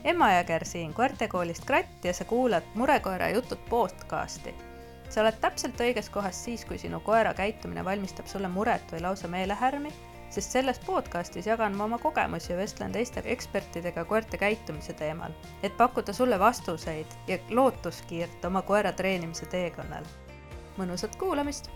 Emma Jõger siin koertekoolist Kratt ja sa kuulad Murekoera jutud podcasti. Sa oled täpselt õiges kohas siis, kui sinu koera käitumine valmistab sulle muret või lausa meelehärmi, sest selles podcastis jagan ma oma kogemusi ja vestlen teiste ekspertidega koerte käitumise teemal, et pakkuda sulle vastuseid ja lootuskiirt oma koera treenimise teekonnal. Mõnusat kuulamist!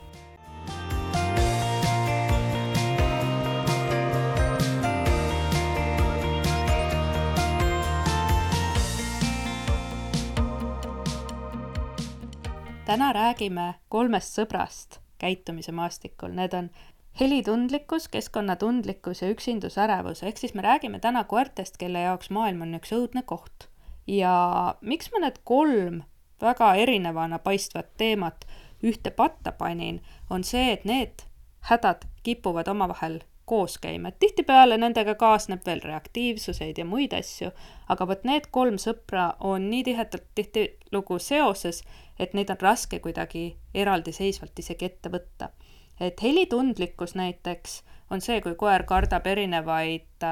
Täna räägime 3 sõbrast käitumise maastikul. Need on helitundlikkus, keskkonnatundlikkus ja üksindusärevus. Ehk siis me räägime täna koertest, kelle jaoks maailm on üks õudne koht. Ja miks ma need 3 väga erinevana paistvat teemat ühte patta panin, on see, et need hädad kipuvad omavahel koos käima. Tihtipeale nendega kaasneb veel reaktiivsuseid ja muid asju, aga võt need 3 sõpra on nii tihedalt tihtilugu seoses, et neid on raske kuidagi eraldiseisvalt isegi ette võtta. Et helitundlikkus näiteks on see, kui koer kardab erinevaid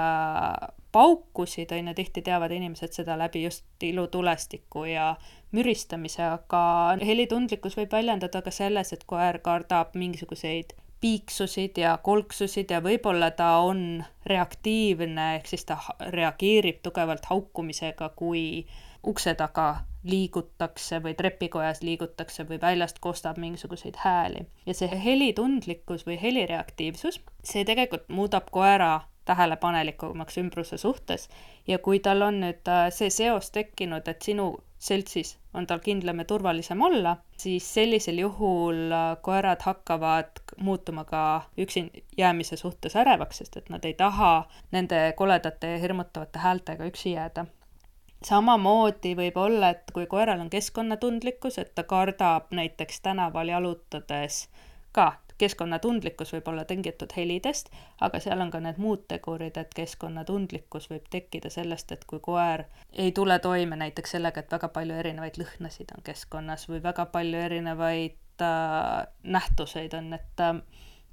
paukusid, tihti teavad inimesed seda läbi just ilutulestiku ja müristamise, aga helitundlikkus võib väljendada ka selles, et koer kardab mingisuguseid piiksusid ja kolksusid ja võib-olla ta on reaktiivne, ehk siis ta reageerib tugevalt haukumisega, kui ukse taga liigutakse või trepikojas liigutakse või väljast kostab mingisuguseid hääli. Ja see helitundlikkus või helireaktiivsus, see tegelikult muudab koera tähelepanelikumaks ümbruse suhtes ja kui tal on nüüd see seos tekkinud, et sinu seltsis on tal kindlam ja turvalisem olla, siis sellisel juhul koerad hakkavad muutuma ka üksin jäämise suhtes ärevaks, sest et nad ei taha nende koledate ja hirmutavate häältega üksi jääda. Samamoodi võib olla, et kui koeral on keskkonnatundlikkus, et ta kardab näiteks tänaval jalutades ka, keskkonnatundlikkus võib olla tingitud helidest, aga seal on ka need muud tegurid, et keskkonnatundlikkus võib tekkida sellest, et kui koer ei tule toime näiteks sellega, et väga palju erinevaid lõhnasid on keskkonnas või väga palju erinevaid nähtuseid on,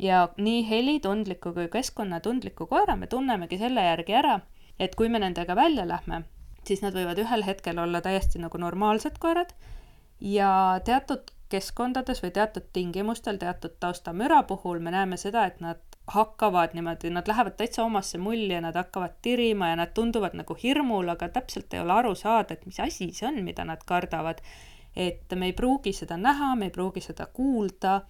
ja nii helitundliku kui keskkonnatundliku koera me tunnemegi selle järgi ära, et kui me nendega välja lähme, siis nad võivad ühel hetkel olla täiesti nagu normaalsed koerad ja teatud keskkondades või teatud tingimustel, teatud taustamüra puhul me näeme seda, et nad hakkavad niimoodi, nad lähevad täitsa omasse mulli ja nad hakkavad tirima ja nad tunduvad nagu hirmul, aga täpselt ei ole aru saada, et mis asi see on, mida nad kardavad. Et me ei pruugi seda näha, me ei pruugi seda kuulda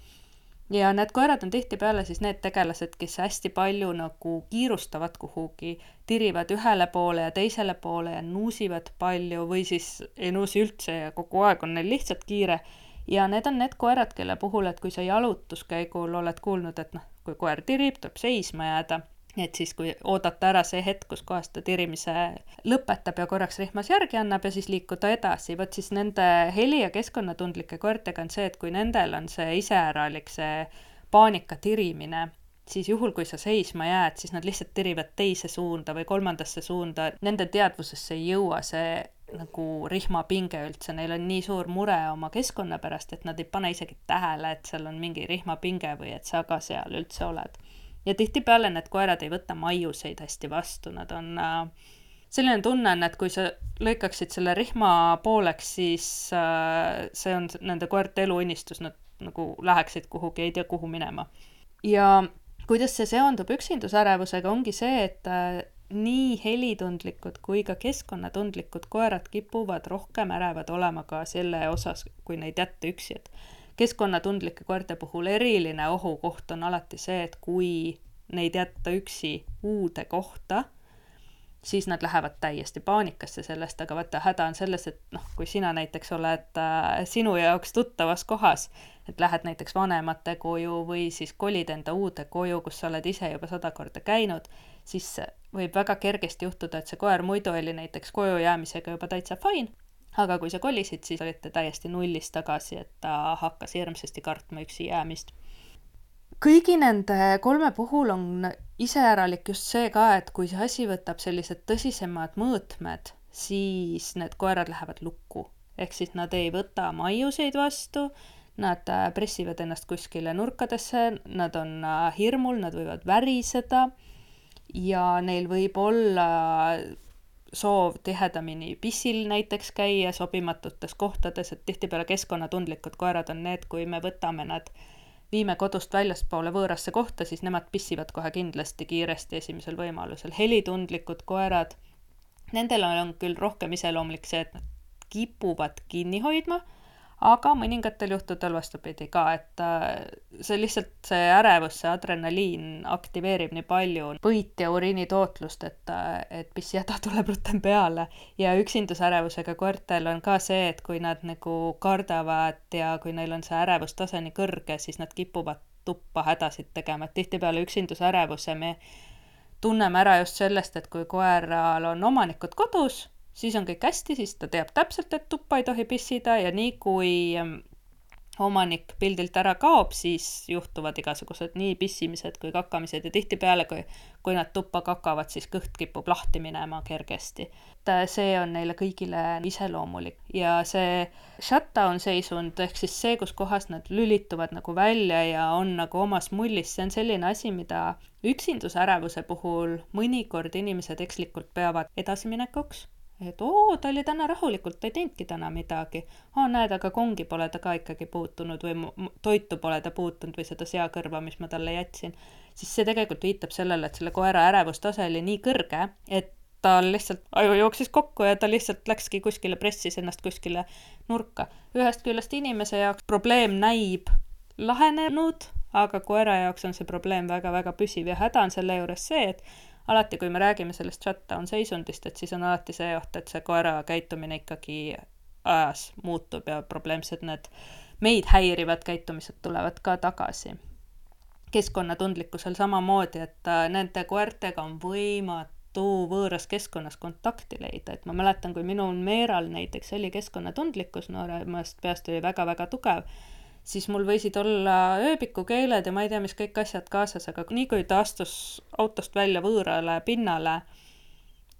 ja need koerad on tihtipeale siis need tegelased, kes hästi palju nagu kiirustavad kuhugi, tirivad ühele poole ja teisele poole ja nuusivad palju või siis ei nuusi üldse ja kogu aeg on neil lihtsalt kiire. Ja need on need koerad, kelle puhul, et kui sa jalutuskäigul oled kuulnud, et kui koer tirib, tuleb seisma jääda, et siis kui oodata ära see hetk, kus kohast ta tirimise lõpetab ja korraks rihmas järgi annab ja siis liikuda edasi, võt siis nende heli- ja keskkonnatundlike koertega on see, et kui nendel on see iseäralik, see paanika tirimine, siis juhul, kui sa seisma jääd, siis nad lihtsalt tirivad teise suunda või kolmandasse suunda, nende teadvusesse ei jõua see nagu rihmapinge üldse, neil on nii suur mure oma keskkonna pärast, et nad ei pane isegi tähele, et seal on mingi rihmapinge või et sa ka seal üldse oled. Ja tihtipeale need koerad ei võta maiuseid hästi vastu, nad on selline tunne on, et kui sa lõikaksid selle rihma pooleks, siis see on nende koerte eluunistus, nad nagu läheksid kuhugi, ei tea kuhu minema. Ja kuidas see seondub üksindusärevusega, ongi see, et nii helitundlikud kui ka keskkonnatundlikud koerad kipuvad rohkem ärevad olema ka selle osas, kui neid jätta üksi. Et keskkonnatundlike koerte puhul eriline ohukoht on alati see, et kui neid jätta üksi uude kohta, siis nad lähevad täiesti paanikasse sellest, aga vaata häda on selles, et kui sina näiteks oled sinu jaoks tuttavas kohas, et lähed näiteks vanemate koju või siis kolid enda uude koju, kus sa oled ise juba 100 korda käinud, siis võib väga kergesti juhtuda, et see koer muidu oli näiteks koju jäämisega juba täitsa fine, aga kui sa kolisid, siis olite täiesti nullist tagasi, et ta hakkas hirmsasti kartma üksi jäämist. Kõigi nende 3 puhul on iseäralik just see ka, et kui see asi võtab sellised tõsisemad mõõtmed, siis need koerad lähevad lukku. Ehk siis nad ei võta maiuseid vastu, nad pressivad ennast kuskile nurkadesse, nad on hirmul, nad võivad väriseda ja neil võib olla soov tihedamini pissil näiteks käia sobimatutes kohtades, et tihtipeale keskkonnatundlikud koerad on need, kui me võtame nad, viime kodust väljaspoole võõrasse kohta, siis nemad pissivad kohe kindlasti kiiresti esimesel võimalusel. Helitundlikud koerad, nendel on küll rohkem iseloomulik see, et nad kipuvad kinni hoidma, aga mõningatel juhtudel vastupidi ka, et see lihtsalt see ärevus, see adrenaliin aktiveerib nii palju põit ja uriinitootlust, et pissihäda tuleb rutem peale. Ja üksindusärevusega koertel on ka see, et kui nad nagu kardavad ja kui neil on see ärevustase nii kõrge, siis nad kipuvad tuppa hädasid tegema, et tihtipeale üksindusärevuse me tunneme ära just sellest, et kui koeral on omanikud kodus, siis on kõik hästi, siis ta teab täpselt, et tuppa ei tohi pissida ja nii kui omanik pildilt ära kaob, siis juhtuvad igasugused nii pissimised kui kakamised ja tihtipeale, kui nad tuppa kakavad, siis kõht kipub lahti minema kergesti. See on neile kõigile iseloomulik ja see shutdown seisund ehk siis see, kus kohas nad lülituvad nagu välja ja on nagu omas mullis, see on selline asi, mida üksindusärevuse puhul mõnikord inimesed ekslikult peavad edasiminekuks. Et ta oli täna rahulikult, ta ei teinudki täna midagi. Näed, aga kongi pole ta ka ikkagi puutunud või toitu pole ta puutunud või seda seakõrva, mis ma talle jätsin. Siis see tegelikult viitab sellele, et selle koera ärevustase oli nii kõrge, et tal lihtsalt aju jooksis kokku ja ta lihtsalt läkski kuskile, pressis ennast kuskile nurka. Ühest küljest inimese jaoks probleem näib lahenenud, aga koera jaoks on see probleem väga-väga püsiv ja häda on selle juures see, et alati, kui me räägime sellest shutdown seisundist, et siis on alati see oht, et see koera käitumine ikkagi ajas muutub ja probleemsed need meid häirivad käitumised tulevad ka tagasi. Keskkonnatundlikkusel samamoodi, et nende koertega on võimatu võõras keskkonnas kontakti leida. Et ma mäletan, kui minul Meeral näiteks oli keskkonnatundlikkus, nooremast peast oli väga-väga tugev, siis mul võisid olla ööbikukeeled ja ma ei tea, mis kõik asjad kaasas, aga nii kui ta astus autost välja võõrale pinnale,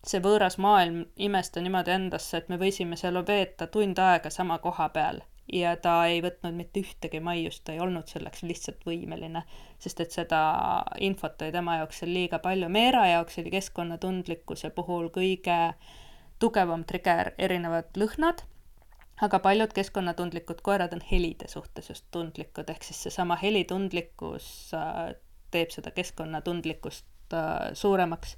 see võõras maailm imesta niimoodi endasse, et me võisime seal veeta tund aega sama koha peal ja ta ei võtnud mitte ühtegi maiust, ta ei olnud selleks lihtsalt võimeline, sest et seda infot oli tema jaoks seal liiga palju. Meera jaoks oli keskkonnatundlikkuse puhul kõige tugevam trigger erinevad lõhnad, aga paljud keskkonnatundlikud koerad on helide suhtes just tundlikud, ehk siis seesama helitundlikkus teeb seda keskkonnatundlikkust suuremaks.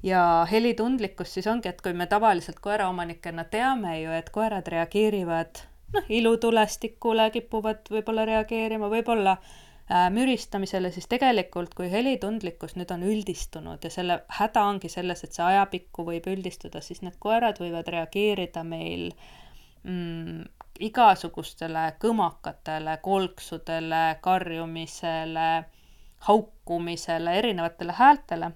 Ja helitundlikkus siis ongi, et kui me tavaliselt koeraomanikena teame ju, et koerad reageerivad ilutulestikule, kipuvad võib-olla reageerima, võib-olla müristamisele, siis tegelikult kui helitundlikkus nüüd on üldistunud ja selle häda ongi selles, et see ajapikku võib üldistuda, siis need koerad võivad reageerida meil igasugustele kõmakatele, kolksudele, karjumisele, haukumisele, erinevatele häältele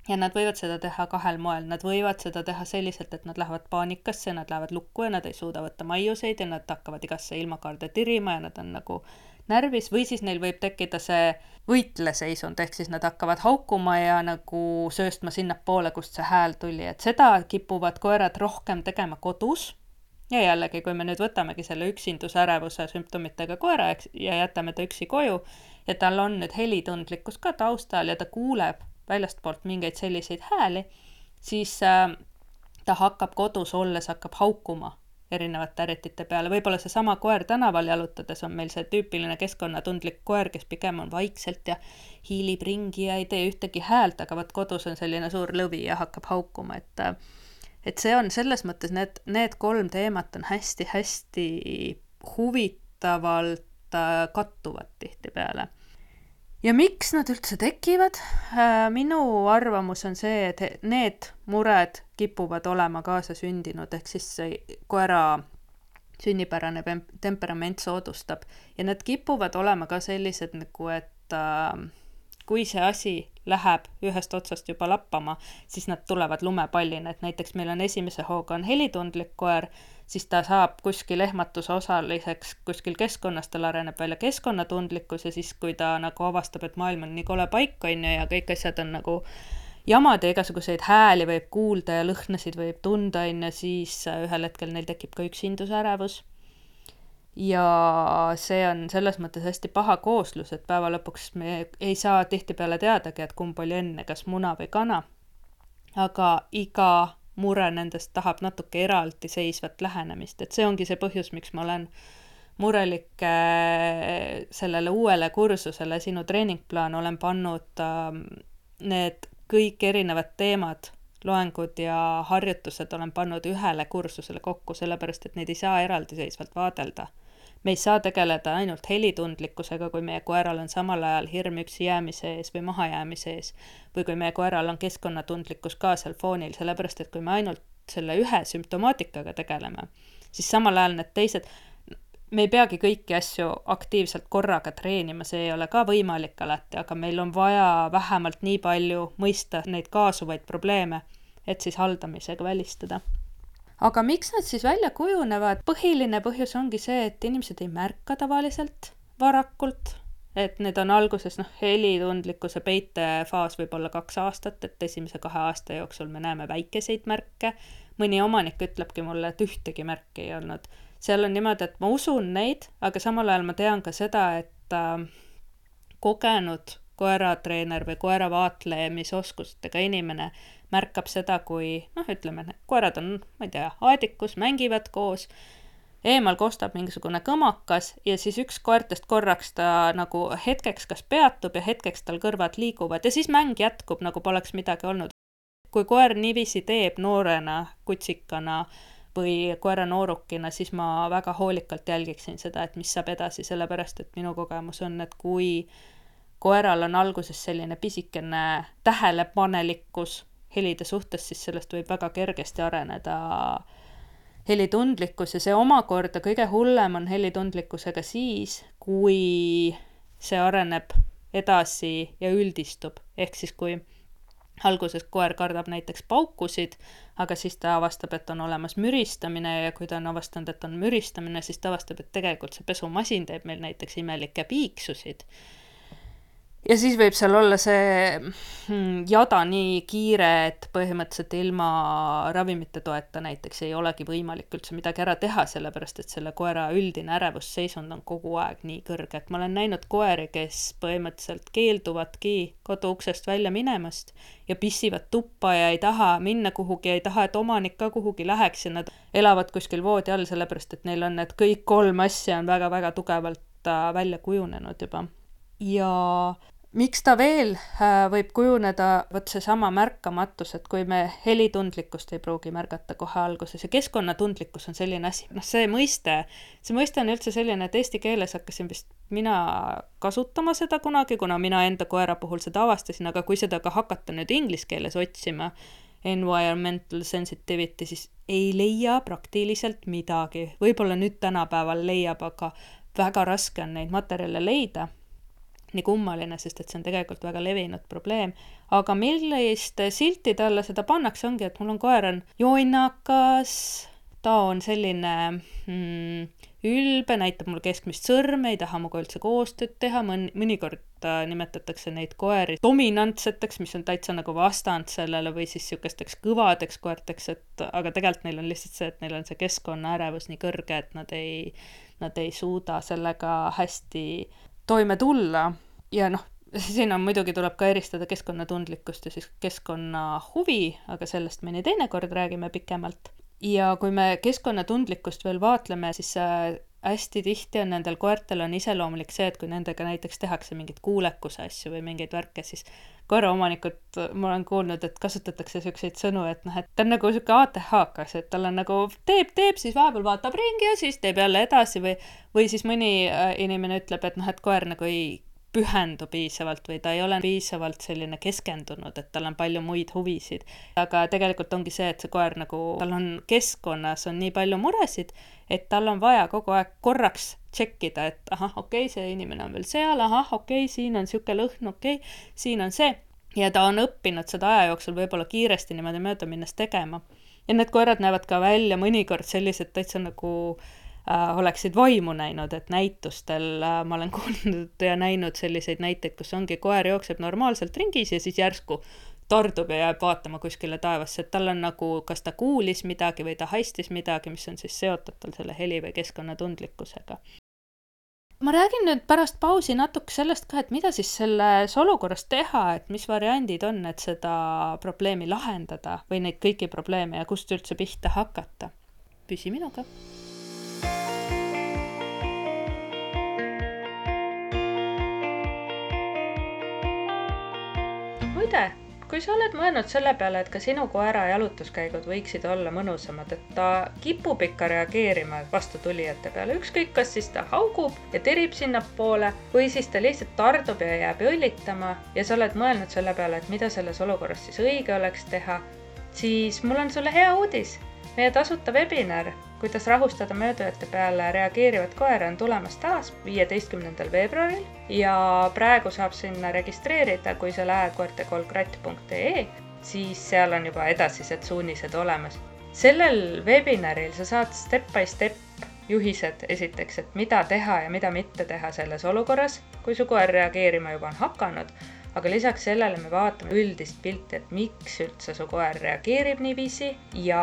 ja nad võivad seda teha kahel moel. Nad võivad seda teha selliselt, et nad lähevad paanikasse, nad lähevad lukku ja nad ei suuda võtta maiuseid ja nad hakkavad igasse ilmakaarde tirima ja nad on nagu närvis või siis neil võib tekkida see võitleseisund, ehk siis nad hakkavad haukuma ja nagu sööstma sinnapoole, kust see hääl tuli, et seda kipuvad koerad rohkem tegema kodus. Ja jällegi, kui me nüüd võtamegi selle üksindusärevuse sümptomitega koera ja jätame ta üksi koju ja tal on nüüd helitundlikkus ka taustal ja ta kuuleb väljastpoolt mingeid selliseid hääli, siis ta hakkab kodus olles, hakkab haukuma erinevate äritite peale. Võib-olla see sama koer tänaval jalutades on meil see tüüpiline keskkonnatundlik koer, kes pigem on vaikselt ja hiilib ringi ja ei tee ühtegi häält, aga võt kodus on selline suur lõvi ja hakkab haukuma, et see on selles mõttes, need kolm teemat on hästi-hästi huvitavalt kattuvad tihtipeale. Ja miks nad üldse tekivad? Minu arvamus on see, et need mured kipuvad olema kaasa sündinud, ehk siis koera sünnipärane temperament soodustab ja need kipuvad olema ka sellised nagu, et kui see asi läheb ühest otsast juba lappama, siis nad tulevad lumepallina, et näiteks meil on esimese hooga on helitundlik koer, siis ta saab kuskil ehmatuse osaliseks kuskil keskkonnas, tal areneb välja keskkonnatundlikkus ja siis, kui ta nagu avastab, et maailm on nii kole paik, on ju, ja kõik asjad on nagu jamad ja igasuguseid hääli võib kuulda ja lõhnasid võib tunda, on ju, siis ühel hetkel neil tekib ka üksindusärevus. Ja see on selles mõttes hästi paha kooslus, et päeva lõpuks me ei saa tihtipeale teadagi, et kumb oli enne, kas muna või kana. Aga iga mure nendest tahab natuke eraldiseisvat lähenemist, et see ongi see põhjus, miks ma olen murelik sellele uuele kursusele, sinu treeningplaan, olen pannud need kõik erinevad teemad, loengud ja harjutused olen pannud ühele kursusele kokku, sellepärast et neid ei saa eraldiseisvalt vaadelda. Me ei saa tegeleda ainult helitundlikkusega, kui meie koeral on samal ajal hirm üksi jäämise ees või mahajäämise ees, või kui meie koeral on keskkonnatundlikkus ka seal foonil, sellepärast et kui me ainult selle ühe sümptomaatikaga tegeleme, siis samal ajal need teised, me ei peagi kõiki asju aktiivselt korraga treenima, see ei ole ka võimalik alati, aga meil on vaja vähemalt nii palju mõista neid kaasuvaid probleeme, et siis haldamisega välistada. Aga miks nad siis välja kujunevad? Põhiline põhjus ongi see, et inimesed ei märka tavaliselt varakult, et need on alguses helitundlikkuse peitefaas võib olla 2 aastat, et esimese 2 aasta jooksul me näeme väikeseid märke. Mõni omanik ütlebki mulle, et ühtegi märki ei olnud. Seal on niimoodi, et ma usun neid, aga samal ajal ma tean ka seda, et kogenud koeratreener või koeravaatleemisoskustega inimene märkab seda, kui, ütleme, koerad on, ma ei tea, aedikus, mängivad koos, eemal kostab mingisugune kõmakas ja siis üks koertest korraks ta nagu hetkeks kas peatub ja hetkeks tal kõrvad liiguvad ja siis mäng jätkub, nagu poleks midagi olnud. Kui koer niiviisi teeb noorena, kutsikana või koera noorukina, siis ma väga hoolikalt jälgiksin seda, et mis saab edasi, sellepärast et minu kogemus on, et kui koeral on alguses selline pisikene tähelepanelikkus helide suhtes, siis sellest võib väga kergesti areneda helitundlikkus ja see omakorda kõige hullem on helitundlikkusega siis, kui see areneb edasi ja üldistub. Ehk siis kui alguses koer kardab näiteks paukusid, aga siis ta avastab, et on olemas müristamine ja kui ta on avastanud, et on müristamine, siis ta avastab, et tegelikult see pesumasin teeb meil näiteks imelikke piiksusid. Ja siis võib seal olla see jada nii kiire, et põhimõtteliselt ilma ravimite toeta näiteks ei olegi võimalik üldse midagi ära teha, sellepärast et selle koera üldine ärevusseisund on kogu aeg nii kõrge, et ma olen näinud koeri, kes põhimõtteliselt keelduvadki koduuksest välja minemast ja pissivad tuppa ja ei taha minna kuhugi, ei taha, et omanik ka kuhugi läheks ja nad elavad kuskil voodi all, sellepärast et neil on need kõik 3 asja on väga-väga tugevalt välja kujunenud juba. Ja miks ta veel võib kujuneda, võt see sama märkamatus, et kui me helitundlikkust ei pruugi märgata kohe alguses ja keskkonnatundlikkus on selline asi, see mõiste on üldse selline, et eesti keeles hakkasin vist mina kasutama seda kunagi, kuna mina enda koera puhul seda avastasin, aga kui seda ka hakata nüüd inglise keeles otsima, environmental sensitivity, siis ei leia praktiliselt midagi. Võib-olla nüüd tänapäeval leiab, aga väga raske on neid materjale leida. Nii kummaline, sest et see on tegelikult väga levinud probleem. Aga millist siltide alla seda pannakse ongi, et mul on koer on jonnakas, ta on selline ülbe, näitab mul keskmist sõrme, ei taha muga üldse koostööd teha, mõnikord nimetatakse neid koeri dominantseteks, mis on täitsa nagu vastand sellele või siis sihukesteks kõvadeks koerteks, aga tegelikult neil on lihtsalt see, et neil on see keskkonnaärevus nii kõrge, et nad ei suuda sellega hästi toime tulla ja siin on muidugi tuleb ka eristada keskkonnatundlikkust ja siis keskkonnahuvi, aga sellest me nii teinekord räägime pikemalt. Ja kui me keskkonnatundlikkust veel vaatleme, siis hästi tihti on nendel koertel on iseloomulik see, et kui nendega näiteks tehakse mingit kuulekuse asju või mingeid värke, siis koeraomanikud, ma olen kuulnud, et kasutatakse selliseid sõnu, et ta on nagu selline ATH-kas, et tal on nagu teeb, siis vahepeal vaatab ringi ja siis teeb jälle edasi või siis mõni inimene ütleb, et koer nagu ei pühendu piisavalt või ta ei ole piisavalt selline keskendunud, et tal on palju muid huvisid. Aga tegelikult ongi see, et see koer nagu, tal on keskkonnas on nii palju muresid, et tal on vaja kogu aeg korraks tšekkida, et okei, see inimene on veel seal, okei, siin on siuke lõhn, okei, siin on see. Ja ta on õppinud seda aja jooksul võib-olla kiiresti niimoodi mööda minnes tegema. Ja need koerad näevad ka välja mõnikord sellised täitsa nagu oleksid vaimu näinud, et näitustel ma olen kuulnud ja näinud selliseid näiteid, kus ongi koer jookseb normaalselt ringis ja siis järsku tardub ja jääb vaatama kuskile taevasse, et tal on nagu, kas ta kuulis midagi või ta haistis midagi, mis on siis seotud tal selle heli või keskkonnatundlikkusega. Ma räägin nüüd pärast pausi natuke sellest ka, et mida siis selles olukorras teha, et mis variandid on, et seda probleemi lahendada või neid kõiki probleeme ja kust üldse pihta hakata. Püsi minuga. Muide, kui sa oled mõelnud selle peale, et ka sinu koera jalutuskäigud võiksid olla mõnusamad, et ta kipub ikka reageerima vastutulijate peale, ükskõik kas siis ta haugub ja tirib sinnapoole või siis ta lihtsalt tardub ja jääb õllitama ja sa oled mõelnud selle peale, et mida selles olukorras siis õige oleks teha, siis mul on sulle hea uudis. Meie tasuta webinar, kuidas rahustada möödujate peale reageerivat koera, on tulemas taas 15. veebruaril ja praegu saab sinna registreerida, kui sa lähed koertekoolkratt.ee, siis seal on juba edasised suunised olemas. Sellel webinaril sa saad step by step juhised esiteks, et mida teha ja mida mitte teha selles olukorras, kui su koer reageerima juba on hakanud. Aga lisaks sellele me vaatame üldist pilti, et miks üldse su koer reageerib niiviisi ja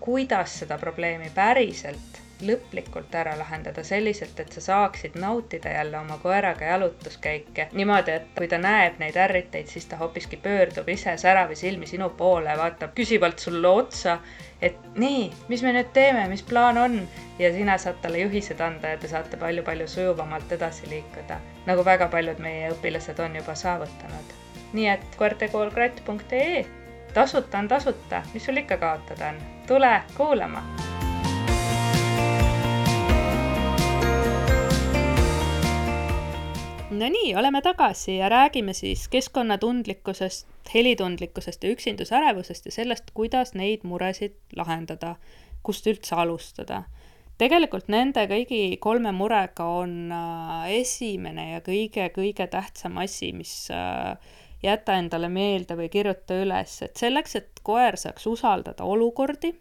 kuidas seda probleemi päriselt lõplikult ära lahendada selliselt, et sa saaksid nautida jälle oma koeraga jalutuskäike. Niimoodi, et kui ta näeb neid ärriteid, siis ta hoopiski pöördub ise säravi silmi sinu poole, vaatab küsivalt sulle otsa, et nii, mis me nüüd teeme, mis plaan on? Ja sina saad talle juhised anda ja te saate palju sujuvamalt edasi liikuda, nagu väga paljud meie õpilased on juba saavutanud. Nii et koertekoolkratt.ee, tasuta on tasuta, mis sul ikka kaotada on? Tule kuulama! No nii, oleme tagasi ja räägime siis keskkonnatundlikkusest, helitundlikkusest ja üksindusärevusest ja sellest, kuidas neid muresid lahendada, kust üldse alustada. Tegelikult nende kõigi 3 murega on esimene ja kõige tähtsam asi, mis jäta endale meelde või kirjuta üles, et selleks, et koer saaks usaldada olukordi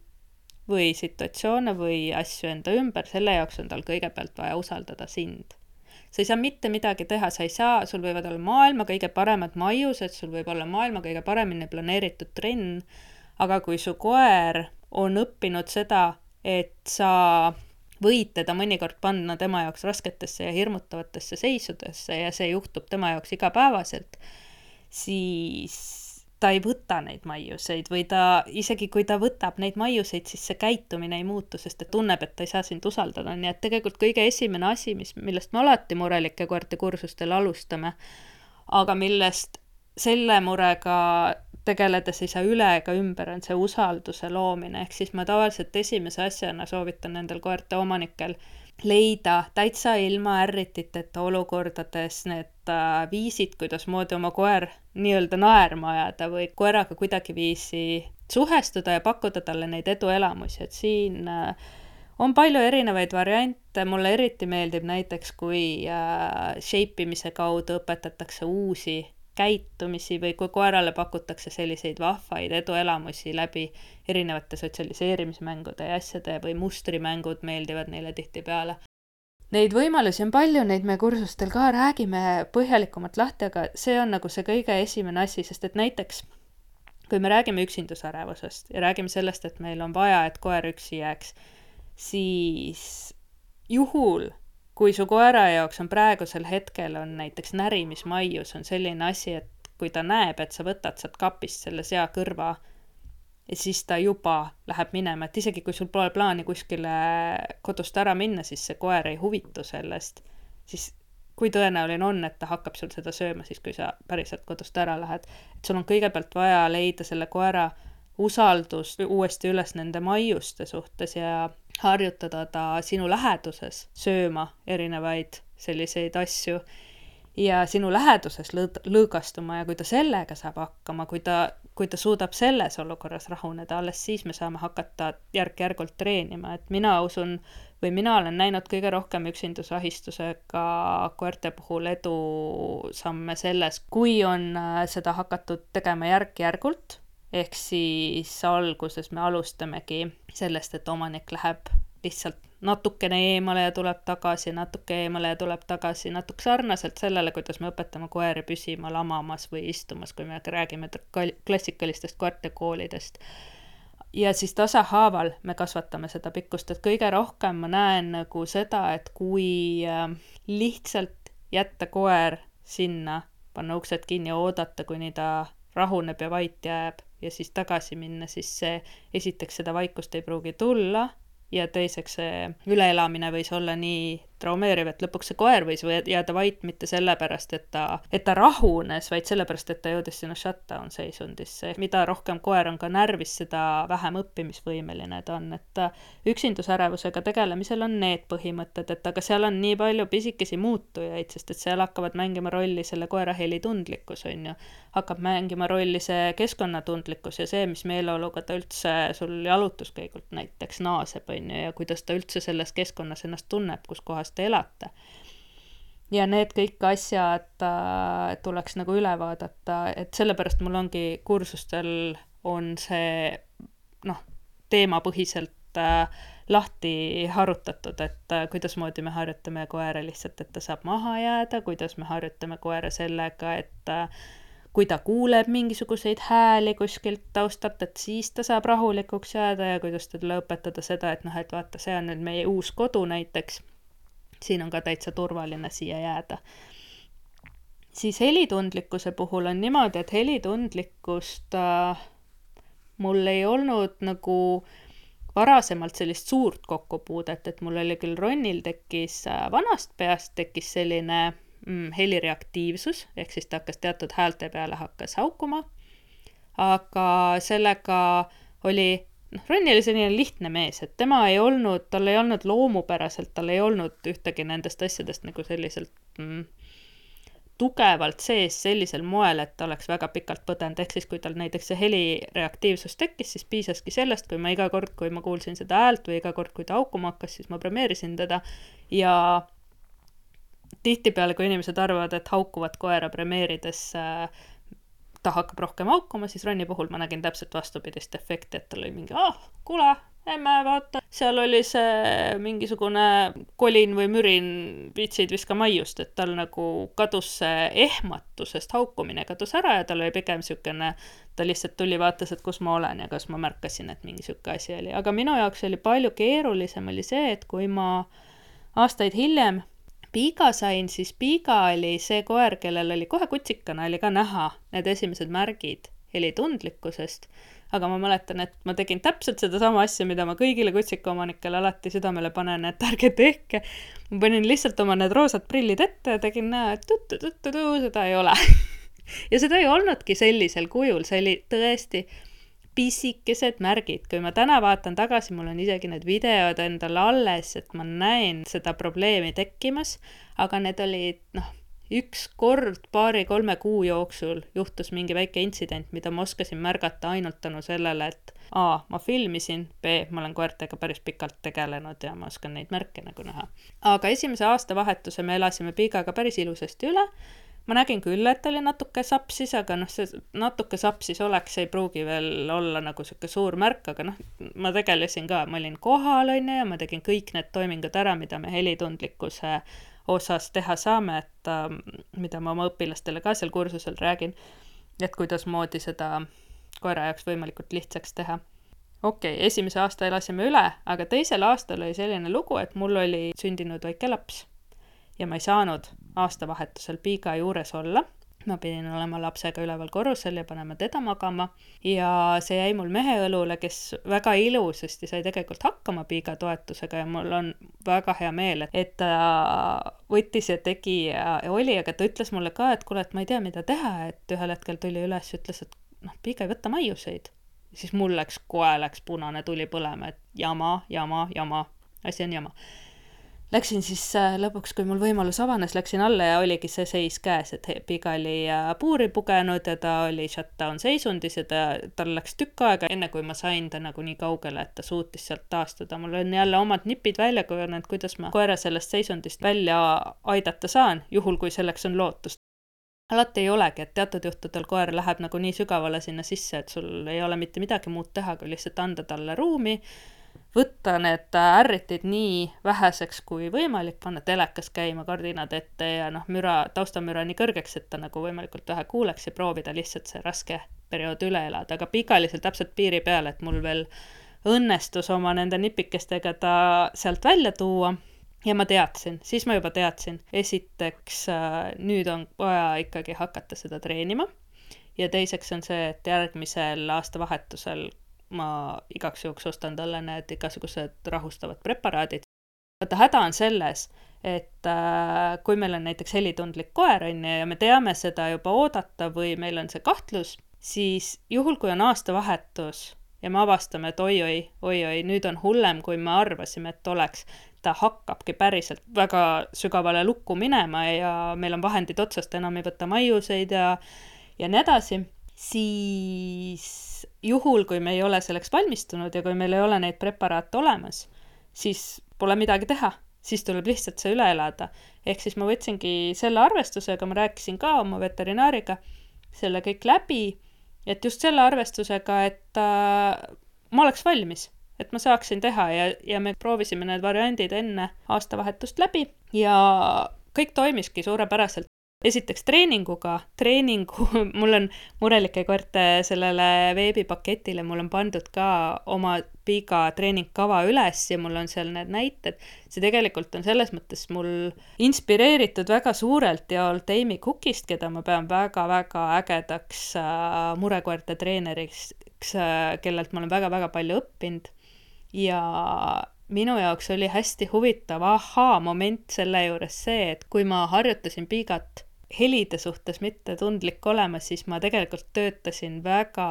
või situatsioone või asju enda ümber, selle jaoks on tal kõigepealt vaja usaldada sind. Sa ei saa mitte midagi teha, sul võivad olla maailma kõige paremad maiused, sul võib olla maailma kõige paremini planeeritud trenn, aga kui su koer on õppinud seda, et sa võid teda mõnikord panna tema jaoks rasketesse ja hirmutavatesse seisudesse ja see juhtub tema jaoks igapäevaselt, siis ta ei võta neid maiuseid või isegi kui ta võtab neid maiuseid, siis see käitumine ei muutu, sest ta tunneb, et ta ei saa sind usaldada. Nii et tegelikult kõige esimene asi, millest me alati murelike koerte kursustel alustame, aga millest selle murega tegeledes ei saa üle ega ümber, on see usalduse loomine. Ehk siis ma tavaliselt esimese asjana soovitan nendel koerte omanikel leida täitsa ilma ärrititeta olukordades need viisid, kuidas moodi oma koer nii-öelda naerma ajada või koeraga kuidagiviisi suhestuda ja pakkuda talle neid eduelamusi, et siin on palju erinevaid variante. Mulle eriti meeldib näiteks, kui shapeimise kaudu õpetatakse uusi käitumisi või kui koerale pakutakse selliseid vahvaid eduelamusi läbi erinevate sotsialiseerimismängude ja asjade või mustrimängud meeldivad neile tihtipeale. Neid võimalusi on palju, neid me kursustel ka räägime põhjalikumalt lahti, aga see on nagu see kõige esimene asi, sest et näiteks kui me räägime üksindusärevusest ja räägime sellest, et meil on vaja, et koer üksi jääks, siis juhul kui su koera jaoks on praegusel hetkel on näiteks närimismaius on selline asi, et kui ta näeb, et sa võtad sealt kapist selle sea kõrva ja siis ta juba läheb minema, et isegi kui sul pole plaani kuskile kodust ära minna, siis see koer ei huvitu sellest, siis kui tõenäoline on, et ta hakkab sul seda sööma siis, kui sa päriselt kodust ära lähed. Et sul on kõigepealt vaja leida selle koera usaldus uuesti üles nende maiuste suhtes ja harjutada ta sinu läheduses sööma erinevaid selliseid asju ja sinu läheduses lõõgastuma ja kui ta sellega saab hakkama, kui ta suudab selles olukorras rahuneda, alles siis me saame hakata järk-järgult treenima, et mina usun või mina olen näinud kõige rohkem üksindusahistusega koerte puhul edusamme selles, kui on seda hakatud tegema järk-järgult. Ehk siis alguses me alustamegi sellest, et omanik läheb lihtsalt natukene eemale ja tuleb tagasi, natuke eemale ja tuleb tagasi, natuke sarnaselt sellele, kuidas me õpetame koeri püsima lamamas või istumas, kui me räägime klassikalistest koertekoolidest. ja siis tasahaaval me kasvatame seda pikkust, et kõige rohkem ma näen nagu seda, et kui lihtsalt jätta koer sinna, panna uksed kinni ja oodata, kuni ta rahuneb ja vait jääb ja siis tagasi minna, siis see esiteks seda vaikust ei pruugi tulla ja teiseks see üleelamine võis olla nii traumeeriv, et lõpuks see koer võis jääda vait mitte sellepärast, et ta rahunes, vaid sellepärast, et ta jõudis sinna shutdown seisundisse. Mida rohkem koer on ka närvis, seda vähem õppimisvõimeline ta on, et üksindusärevusega tegelemisel on need põhimõtted, et aga seal on nii palju pisikesi muutujaid, sest et seal hakkavad mängima rolli selle koera helitundlikkus, on ju, hakkab mängima rolli see keskkonnatundlikkus ja see, mis meeleoluga ta üldse sul jalutuskäigult näiteks naaseb, on ju, ja kuidas ta üldse selles keskkonnas ennast tunneb, kus kohas te elate. Ja need kõik asjad tuleks nagu üle vaadata, et sellepärast mul ongi kursustel on see teemapõhiselt lahti harutatud, et kuidas moodi me harjutame koera lihtsalt, et ta saab maha jääda, kuidas me harjutame koera sellega, et kui ta kuuleb mingisuguseid hääli kuskilt taustalt, et siis ta saab rahulikuks jääda ja kuidas talle õpetada seda, et et vaata, see on nüüd meie uus kodu näiteks, siin on ka täitsa turvaline siia jääda. Siis helitundlikkuse puhul on niimoodi, et helitundlikkust mul ei olnud nagu varasemalt sellist suurt kokkupuudet, et mul oli küll Ronnil tekkis vanast peast tekkis selline helireaktiivsus, ehk siis ta hakkas teatud häälte peale hakkas haukuma, aga sellega oli Ronni oli selline lihtne mees, et tal ei olnud loomupäraselt, tal ei olnud ühtegi nendest asjadest nagu selliselt tugevalt sees sellisel moel, et ta oleks väga pikalt põdenud, ehk siis kui tal näiteks see helireaktiivsus tekkis, siis piisaski sellest, kui ma iga kord, kui ma kuulsin seda häält või iga kord, kui ta haukuma hakkas, siis ma premeerisin teda ja tihtipeale, kui inimesed arvavad, et haukuvat koera premeerides ta hakkab rohkem haukuma, siis Ronni puhul ma nägin täpselt vastupidist efekti, et tal oli mingi, kuule, emme, vaata, seal oli see mingisugune kolin või mürin, vitsid viska maiust, et tal nagu kadus see ehmatusest haukumine kadus ära ja tal oli pigem siukene, ta lihtsalt tuli, vaatas, et kus ma olen ja kas ma märkasin, et mingi siuke asi oli. Aga minu jaoks oli palju keerulisem oli see, et kui ma aastaid hiljem Piiga sain, siis Piiga oli see koer, kellel oli kohe kutsikana, oli ka näha need esimesed märgid helitundlikkusest, aga ma mäletan, et ma tegin täpselt seda sama asja, mida ma kõigile kutsikaomanikele alati südamele panen, et ärge tehke. Ma panin lihtsalt oma need roosad prillid ette ja tegin näha, et seda ei ole. Ja seda ei olnudki sellisel kujul, see oli tõesti pisikesed märgid. Kui ma täna vaatan tagasi, mul on isegi need videod endal alles, et ma näen seda probleemi tekkimas, aga need olid, üks kord 2-3 kuu jooksul juhtus mingi väike intsident, mida ma oskasin märgata ainult tänu sellele, et A, ma filmisin, B, ma olen koertega päris pikalt tegelenud ja ma oskan neid märke nagu näha. Aga esimese aastavahetuse me elasime Piigaga päris ilusasti üle. Ma nägin küll, et oli natuke sapsis, aga see natuke sapsis oleks, ei pruugi veel olla nagu siuke suur märk, aga ma tegelesin ka, ma olin kohal ja ma tegin kõik need toimingud ära, mida me helitundlikkuse osas teha saame, et mida ma oma õpilastele ka seal kursusel räägin, et kuidas moodi seda koera jaoks võimalikult lihtsaks teha. Okei, esimese aasta elasime üle, aga teisel aastal oli selline lugu, et mul oli sündinud väike laps. Ja ma ei saanud aastavahetusel Piiga juures olla. Ma pidin olema lapsega üleval korrusel ja panema teda magama. Ja see jäi mul mehe õlule, kes väga ilusasti sai tegelikult hakkama Piiga toetusega ja mul on väga hea meel, et ta võttis ja tegi ja oli, aga ta ütles mulle ka, et kuule, et ma ei tea, mida teha, et ühel hetkel tuli üles ja ütles, et Piiga ei võta maiuseid. Ja siis mul läks punane tuli põlema, et jama, asi on jama. Läksin siis lõpuks, kui mul võimalus avanes, läksin alla ja oligi see seis käes, et Piiga oli puuri pugenud ja ta oli shutdown seisundis ja tal läks tükk aega, enne kui ma sain ta nagu nii kaugele, et ta suutis sealt taastuda. Mul on jälle omad nipid välja kujunenud, kuidas ma koera sellest seisundist välja aidata saan, juhul kui selleks on lootust. Alati ei olegi, et teatud juhtudel koer läheb nagu nii sügavale sinna sisse, et sul ei ole mitte midagi muud teha, kui lihtsalt anda talle ruumi, võtta need ärritid nii väheseks kui võimalik, panna telekas käima, kardinad ette ja taustamüra nii kõrgeks, et ta nagu võimalikult vähe kuuleks ja proovida lihtsalt see raske periood üle elada, aga pikalisel täpselt piiri peal, et mul veel õnnestus oma nende nipikestega ta sealt välja tuua ja ma teadsin, siis ma juba teadsin, esiteks nüüd on vaja ikkagi hakata seda treenima ja teiseks on see, et järgmisel aastavahetusel ma igaks juhuks ostan talle need igasugused rahustavad preparaadid. Vaata, häda on selles, et kui meil on näiteks helitundlik koer ja me teame seda juba oodata või meil on see kahtlus, siis juhul, kui on aastavahetus ja me avastame, et oi, nüüd on hullem, kui me arvasime, et oleks, ta hakkabki päriselt väga sügavale lukku minema ja meil on vahendid otsast, enam ei võta maiuseid ja nii edasi, siis juhul, kui me ei ole selleks valmistunud ja kui meil ei ole neid preparaate olemas, siis pole midagi teha, siis tuleb lihtsalt see üle elada. Ehk siis ma võtsingi selle arvestusega, ma rääkisin ka oma veterinaariga selle kõik läbi, et just selle arvestusega, et ma oleks valmis, et ma saaksin teha ja me proovisime need variandid enne aastavahetust läbi ja kõik toimiski suurepäraselt. Esiteks treeningu, mul on murelike koerte sellele veebipaketile, mul on pandud ka oma piga treeningkava üles ja mul on seal need näited. See tegelikult on selles mõttes mul inspireeritud väga suurelt ja Old Amy Cookist, keda ma pean väga-väga ägedaks murekoerte treeneriks, kellelt ma olen väga-väga palju õppinud. Ja minu jaoks oli hästi huvitav moment selle juures see, et kui ma harjutasin piigat helide suhtes mitte tundlik olema, siis ma tegelikult töötasin väga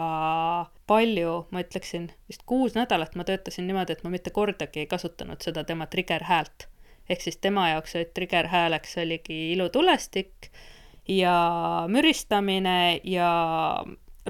palju, ma ütleksin, vist 6 nädalat ma töötasin niimoodi, et ma mitte kordagi ei kasutanud seda tema trigger-häält. Ehk siis tema jaoks trigger-hääleks oligi ilutulestik ja müristamine ja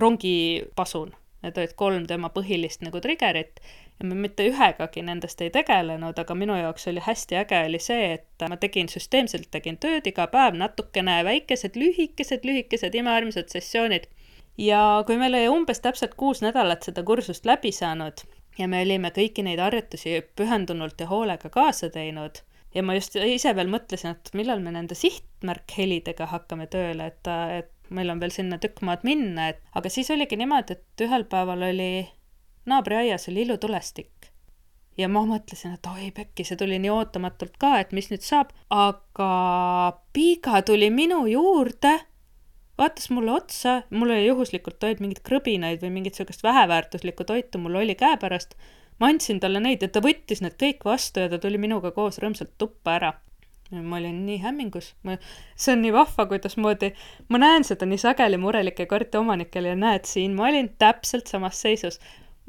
rongipasun. Need olid 3 tema põhilist nagu triggerit ja ma mitte ühegagi nendest ei tegelenud, aga minu jaoks oli hästi äge oli see, et ma süsteemselt tegin tööd iga päev natukene väikesed, lühikesed imearmsad sessioonid. Ja kui meil oli umbes täpselt 6 nädalat seda kursust läbi saanud ja me olime kõiki neid harjutusi pühendunult ja hoolega kaasa teinud ja ma just ise veel mõtlesin, et millal me nende sihtmärkhelidega hakkame tööle, et meil on veel sinna tükk maad minna, aga siis oligi niimoodi, et ühel päeval oli naabriaias oli ilutulestik ja ma mõtlesin, et oi pekki, see tuli nii ootamatult ka, et mis nüüd saab, aga piiga tuli minu juurde, vaatas mulle otsa, mul oli juhuslikult toid mingid krõbinaid või mingit sellist väheväärtuslikku toitu mul oli käepärast, ma andsin talle neid ja ta võttis need kõik vastu ja ta tuli minuga koos rõõmsalt tuppa ära. Ma olin nii hämmingus. See on nii vahva, kuidas moodi. Ma näen seda nii sageli murelike koerte omanikel ja näed siin, ma olin täpselt samas seisus.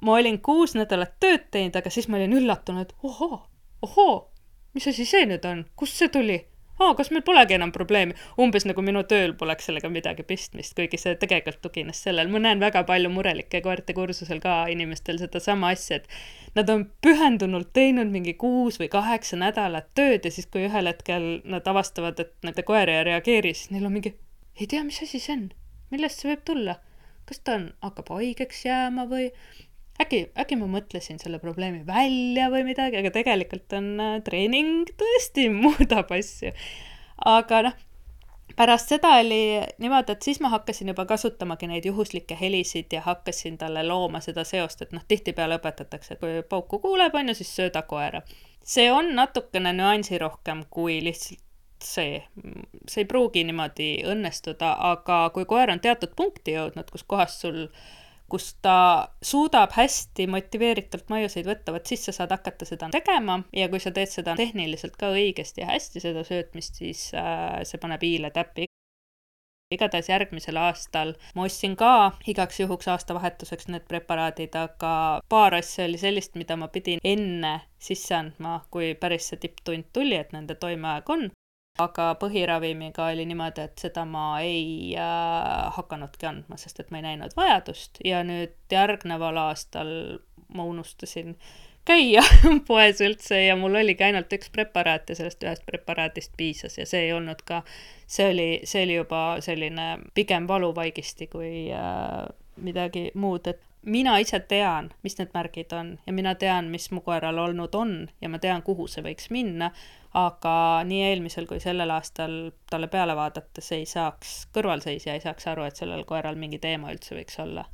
Ma olin 6 nädalat tööd teinud, aga siis ma olin üllatunud, ohoo, mis asi see nüüd on? Kust see tuli? Kas meil polegi enam probleemi? Umbes nagu minu tööl poleks sellega midagi pistmist, kuigi see tegelikult tugines sellel. Ma näen väga palju murelike koerte kursusel ka inimestel seda sama asja, et nad on pühendunult teinud mingi 6 või 8 nädalat tööd ja siis kui ühel hetkel nad avastavad, et nende koer ei reageeri, siis neil on mingi, ei tea, mis asi see on? Millest see võib tulla? Kas ta hakkab haigeks jääma või äkki ma mõtlesin selle probleemi välja või midagi, aga tegelikult on treening tõesti muudab asju. Aga pärast seda oli niimoodi, et siis ma hakkasin juba kasutamagi neid juhuslikke helisid ja hakkasin talle looma seda seost, et tihtipeale õpetatakse, et kui pauku kuuleb, on ju, siis sööda koera. See on natukene nüansi rohkem kui lihtsalt see ei pruugi niimoodi õnnestuda, aga kui koer on teatud punkti jõudnud, kus ta suudab hästi motiveeritult maiuseid võtta, siis sa saad hakata seda tegema ja kui sa teed seda tehniliselt ka õigesti ja hästi seda söötmist, siis see paneb hiile täppi. Igatahes järgmisel aastal ma ostsin ka igaks juhuks aastavahetuseks need preparaadid, aga paar asja oli sellist, mida ma pidin enne sisse andma, kui päris see tipptund tuli, et nende toimeaeg on. Aga põhiravimiga oli niimoodi, et seda ma ei hakanudki andma, sest et ma ei näinud vajadust ja nüüd järgneval aastal ma unustasin käia poes üldse ja mul oligi ainult üks preparaat ja sellest ühest preparaatist piisas ja see ei olnud ka, see oli juba selline pigem valuvaigisti kui midagi muud, et mina ise tean, mis need märgid on ja mina tean, mis mu koeral olnud on ja ma tean, kuhu see võiks minna, aga nii eelmisel kui sellel aastal talle peale vaadates ei saaks, kõrvalseisja ei saaks aru, et sellel koeral mingi teema üldse võiks olla.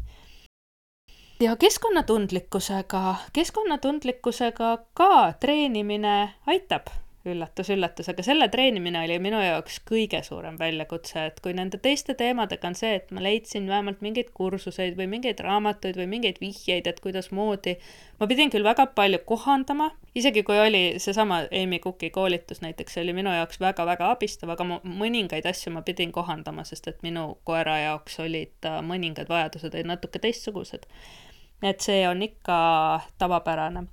Ja keskkonnatundlikkusega ka treenimine aitab, üllatus, aga selle treenimine oli minu jaoks kõige suurem väljakutse, et kui nende teiste teemadega on see, et ma leidsin vähemalt mingeid kursuseid või mingeid raamatuid või mingeid vihjeid, et kuidas moodi, ma pidin küll väga palju kohandama, isegi kui oli seesama Amy Cooki koolitus näiteks, see oli minu jaoks väga-väga abistav, aga mõningaid asju ma pidin kohandama, sest et minu koera jaoks olid mõningad vajadused natuke teistsugused. Et see on ikka tavapärane.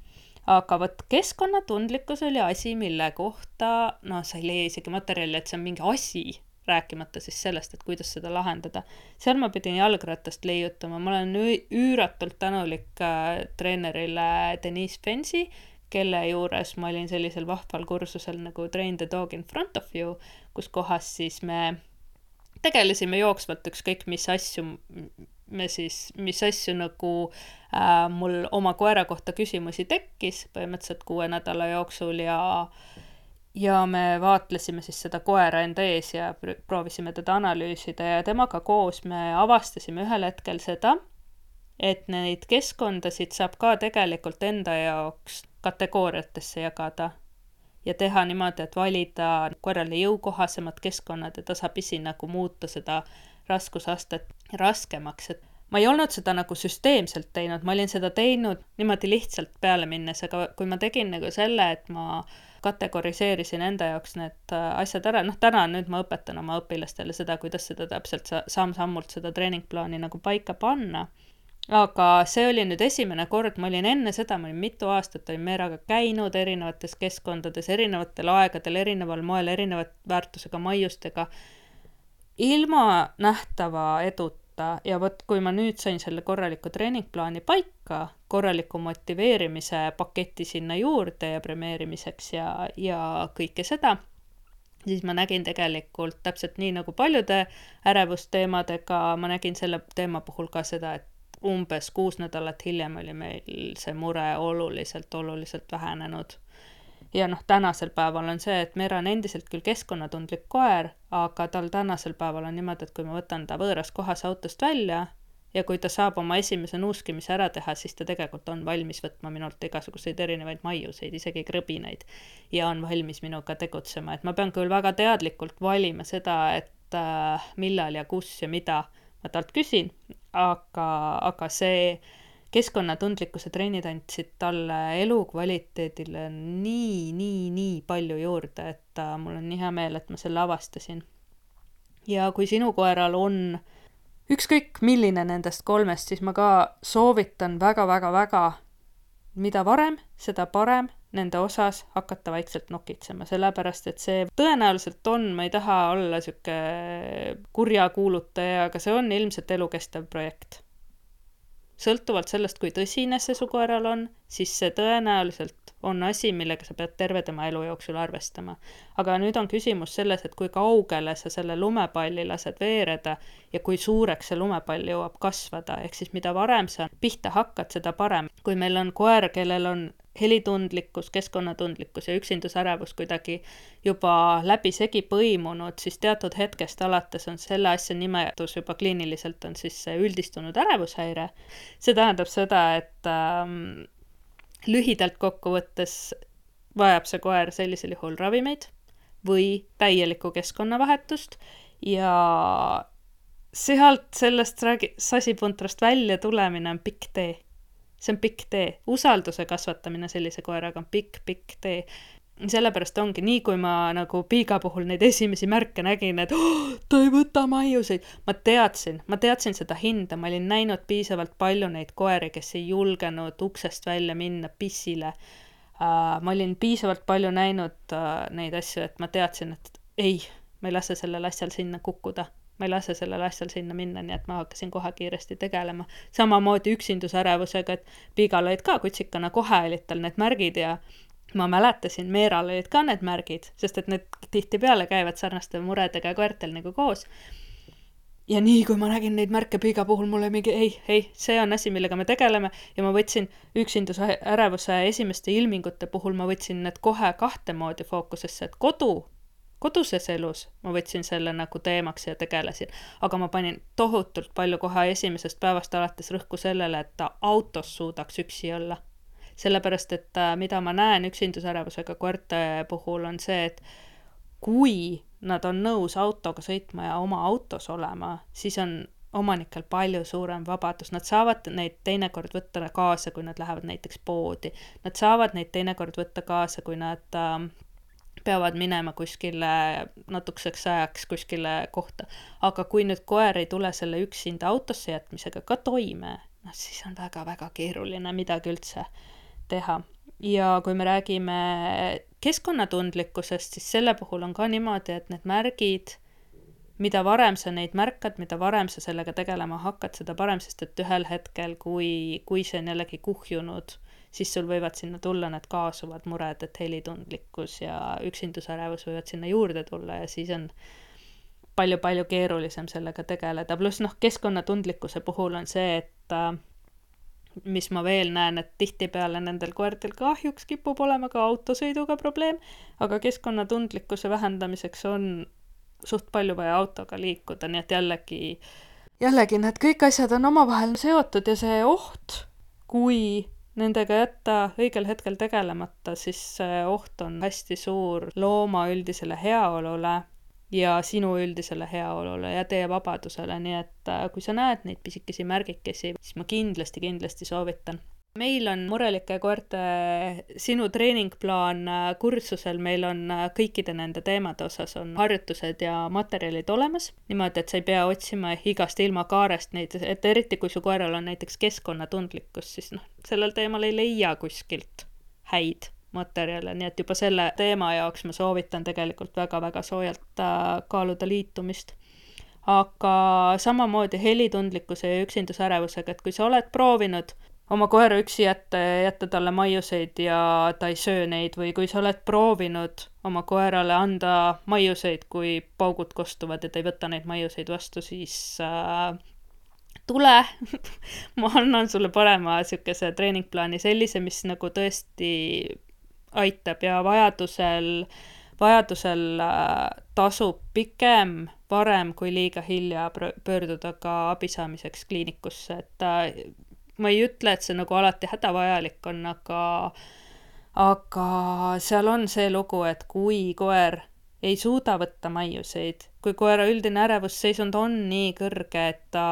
Aga võt keskkonnatundlikkus oli asi, mille kohta, sa ei leia isegi materjali, et see on mingi asi, rääkimata siis sellest, et kuidas seda lahendada. Seal ma pidin jalgratast leiutama, ma olen üüratult tänulik treenerile Denise Fensi, kelle juures ma olin sellisel vahval kursusel nagu Train the Dog in Front of You, kus kohas siis me tegelesime jooksvalt ükskõik mis asju nagu mul oma koera kohta küsimusi tekkis põhimõtteliselt 6 nädala jooksul ja me vaatlesime siis seda koera enda ees ja proovisime teda analüüsida ja temaga koos me avastasime ühel hetkel seda, et neid keskkondasid saab ka tegelikult enda jaoks kategooriatesse jagada ja teha niimoodi, et valida koerale jõukohasemad keskkonnad ja tasapisi nagu muuta seda raskusastet raskemaks, et ma ei olnud seda nagu süsteemselt teinud, ma olin seda teinud niimoodi lihtsalt peale minnes, aga kui ma tegin nagu selle, et ma kategoriseerisin enda jaoks need asjad ära, täna nüüd ma õpetan oma õpilastele seda, kuidas seda täpselt samm-sammult seda treeningplaani nagu paika panna, aga see oli nüüd esimene kord, ma olin enne seda, ma olin mitu aastat, olin Meeraga käinud erinevates keskkondades, erinevatel aegadel, erineval moel, erinevat väärtusega maiustega, ilma nähtava eduta ja võt, kui ma nüüd sain selle korraliku treeningplaani paika, korraliku motiveerimise paketi sinna juurde ja premeerimiseks ja kõike seda, siis ma nägin tegelikult täpselt nii nagu paljude ärevusteemadega, ma nägin selle teema puhul ka seda, et umbes 6 nädalat hiljem oli meil see mure oluliselt vähenenud. Ja tänasel päeval on see, et Meera on endiselt küll keskkonnatundlik koer, aga tal tänasel päeval on niimoodi, et kui ma võtan ta võõras kohas autost välja ja kui ta saab oma esimese nuuskimise ära teha, siis ta tegelikult on valmis võtma minult igasuguseid erinevaid maiuseid, isegi krõbinaid ja on valmis minuga tegutsema. Et ma pean küll väga teadlikult valima seda, et millal ja kus ja mida ma talt küsin, aga see keskkonnatundlikkuse treenid andsid talle elukvaliteedile nii palju juurde, et mul on nii hea meel, et ma selle avastasin. Ja kui sinu koeral on ükskõik milline nendest 3, siis ma ka soovitan väga, mida varem, seda parem nende osas hakata vaikselt nokitsema, sellepärast et see tõenäoliselt on, ma ei taha olla siuke kurja kuulutaja, aga see on ilmselt elukestev projekt. Sõltuvalt sellest, kui tõsine see su koeral on, siis see tõenäoliselt on asi, millega sa pead terve tema elu jooksul arvestama. Aga nüüd on küsimus selles, et kui kaugele sa selle lumepalli lased veereda ja kui suureks see lumepall jõuab kasvada, ehk siis mida varem sa pihta hakkad, seda parem. Kui meil on koer, kellel on helitundlikkus, keskkonnatundlikkus ja üksindusärevus kuidagi juba läbisegi põimunud, siis teatud hetkest alates on selle asja nimetus juba kliiniliselt on siis see üldistunud ärevushäire. See tähendab seda, et lühidalt kokkuvõttes vajab see koer sellisel juhul ravimeid või täielikku keskkonnavahetust ja sealt sellest sasipuntrast välja tulemine on pikk tee. See on pikk tee. Usalduse kasvatamine sellise koeraga on pikk tee. Sellepärast ongi nii, kui ma nagu Piiga puhul neid esimesi märke nägin, et ta ei võta maiuseid. Ma teadsin seda hinda, ma olin näinud piisavalt palju neid koeri, kes ei julgenud uksest välja minna pissile. Ma olin piisavalt palju näinud neid asju, et ma teadsin, et ei, ma ei lase sellel asjal sinna kukkuda. Ma ei lase sellel asjal sinna minna, nii et ma hakkasin kohe kiiresti tegelema. Samamoodi üksindusärevusega, et Piigal olid ka kutsikana, kohe olid tal need märgid ja ma mäletasin, Meeral olid ka need märgid, sest et need tihtipeale käivad sarnaste muredega koertel nagu koos. ja nii, kui ma nägin neid märke piiga puhul, mulle mingi ei, see on asi, millega me tegeleme ja ma võtsin üksinduse ärevuse esimeste ilmingute puhul, ma võtsin need kohe kahte moodi fookusesse, et koduses elus ma võtsin selle nagu teemaks ja tegelesin, aga ma panin tohutult palju kohe esimesest päevast alates rõhku sellele, et ta autos suudaks üksi olla. Sellepärast, et mida ma näen üksindusärevusega koerte puhul on see, et kui nad on nõus autoga sõitma ja oma autos olema, siis on omanikel palju suurem vabadus. Nad saavad neid teinekord võtta kaasa, kui nad lähevad näiteks poodi. Nad saavad neid teinekord võtta kaasa, kui nad peavad minema kuskile natukeseks ajaks kuskile kohta. Aga kui nüüd koer ei tule selle üksinda autosse jätmisega ka toime, siis on väga-väga keeruline midagi üldse teha. Ja kui me räägime keskkonnatundlikkusest, siis selle puhul on ka niimoodi, et need märgid, mida varem sa neid märkad, mida varem sa sellega tegelema hakkad, seda parem, sest et ühel hetkel, kui see on jällegi kuhjunud, siis sul võivad sinna tulla need kaasuvad mured, et helitundlikkus ja üksindusärevus võivad sinna juurde tulla ja siis on palju-palju keerulisem sellega tegeleda. Pluss keskkonnatundlikkuse puhul on see, et mis ma veel näen, et tihtipeale nendel koertel kahjuks kipub olema ka autosõiduga probleem, aga keskkonnatundlikkuse vähendamiseks on suht palju vaja autoga liikuda, nii et jällegi need kõik asjad on omavahel seotud ja see oht, kui nendega jätta õigel hetkel tegelemata, siis see oht on hästi suur looma üldisele heaolule ja sinu üldisele heaolule ja teie vabadusele, nii et kui sa näed neid pisikesi märgikesi, siis ma kindlasti soovitan. Meil on murelike koerte sinu treeningplaan kursusel, meil on kõikide nende teemade osas on harjutused ja materjalid olemas, niimoodi, et sa ei pea otsima igast ilmakaarest neid, et eriti kui su koeral on näiteks keskkonnatundlikkus, siis sellel teemal ei leia kuskilt häid materjale, nii et juba selle teema jaoks ma soovitan tegelikult väga-väga soojalt kaaluda liitumist. Aga samamoodi helitundlikkuse ja üksindusärevusega, et kui sa oled proovinud oma koera üksi jätta talle maiuseid ja ta ei söö neid või kui sa oled proovinud oma koerale anda maiuseid, kui paugud kostuvad ja ta ei võta neid maiuseid vastu, siis tule, ma annan sulle parema sükese treeningplaani, sellise, mis nagu tõesti aitab ja vajadusel tasub pikem varem kui liiga hilja pöörduda ka abi saamiseks kliinikusse, et ma ei ütle, et see nagu alati hädavajalik on, aga seal on see lugu, et kui koer ei suuda võtta maiuseid, kui koera üldine ärevusseisund on nii kõrge, et ta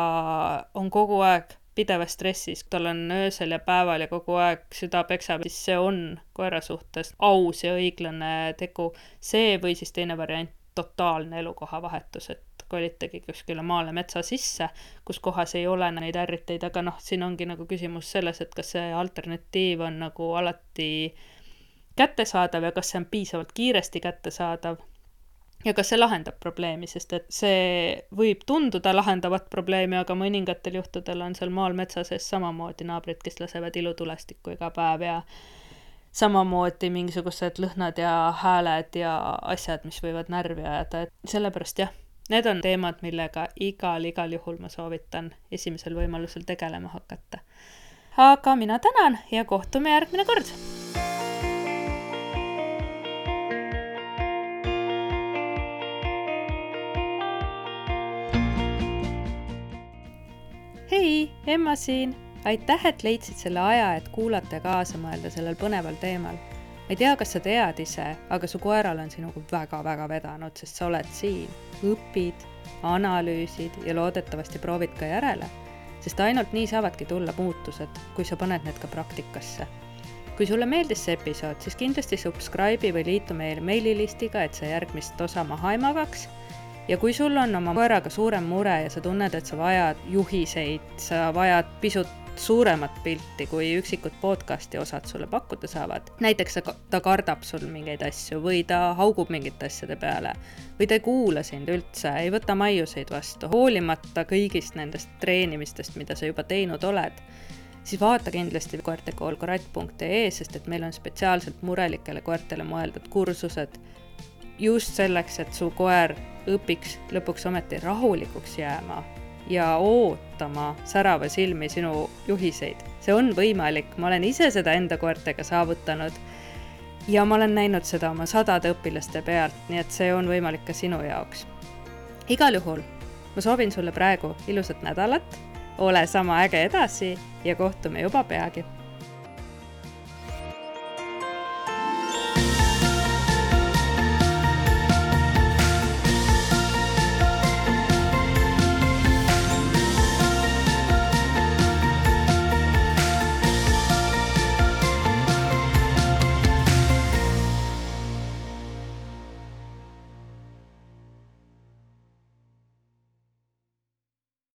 on kogu aeg pidevas stressis, tal on öösel ja päeval ja kogu aeg süda peksab, siis see on koera suhtes aus ja õiglane tegu. See või siis teine variant, totaalne elukoha vahetus, et kolitagi kuskile maale metsa sisse, kus kohas ei ole neid ärriteid, aga siin ongi nagu küsimus selles, et kas see alternatiiv on nagu alati kättesaadav ja kas see on piisavalt kiiresti kättesaadav ja kas see lahendab probleemi, sest et see võib tunduda lahendavat probleemi, aga mõningatel juhtudel on seal maal metsa sees samamoodi naabrid, kes lasevad ilutulestikku iga päev ja samamoodi mingisugused lõhnad ja hääled ja asjad, mis võivad närvi ajada, et sellepärast jah, need on teemad, millega igal juhul ma soovitan esimesel võimalusel tegelema hakata. Aga mina tänan ja kohtume järgmine kord! Hei, Emma siin! Aitäh, et leidsid selle aja, et kuulata ja kaasa mõelda sellel põneval teemal. Ma ei tea, kas sa tead ise, aga su koeral on sinuga väga-väga vedanud, sest sa oled siin, õpid, analüüsid ja loodetavasti proovid ka järele, sest ainult nii saavadki tulla muutused, kui sa paned need ka praktikasse. Kui sulle meeldis see episood, siis kindlasti subscribe'i või liitu meil meililistiga, et sa järgmist osa maha ei magaks. Ja kui sul on oma koeraga suurem mure ja sa tunned, et sa vajad juhiseid, sa vajad pisut suuremat pilti, kui üksikud podcasti osad sulle pakkuda saavad. Näiteks ta kardab sul mingeid asju või ta haugub mingite asjade peale või ta ei kuula sind üldse, ei võta maiuseid vastu, hoolimata kõigist nendest treenimistest, mida sa juba teinud oled, siis vaata kindlasti koertekoolkoratt.ee, sest et meil on spetsiaalselt murelikele koertele mõeldud kursused, just selleks, et su koer õpiks lõpuks ometi rahulikuks jääma ja ootama särava silmi sinu juhiseid. See on võimalik, ma olen ise seda enda koertega saavutanud ja ma olen näinud seda oma 100 õpilaste pealt, nii et see on võimalik ka sinu jaoks. Igal juhul, ma soovin sulle praegu ilusat nädalat, ole sama äge edasi ja kohtume juba peagi.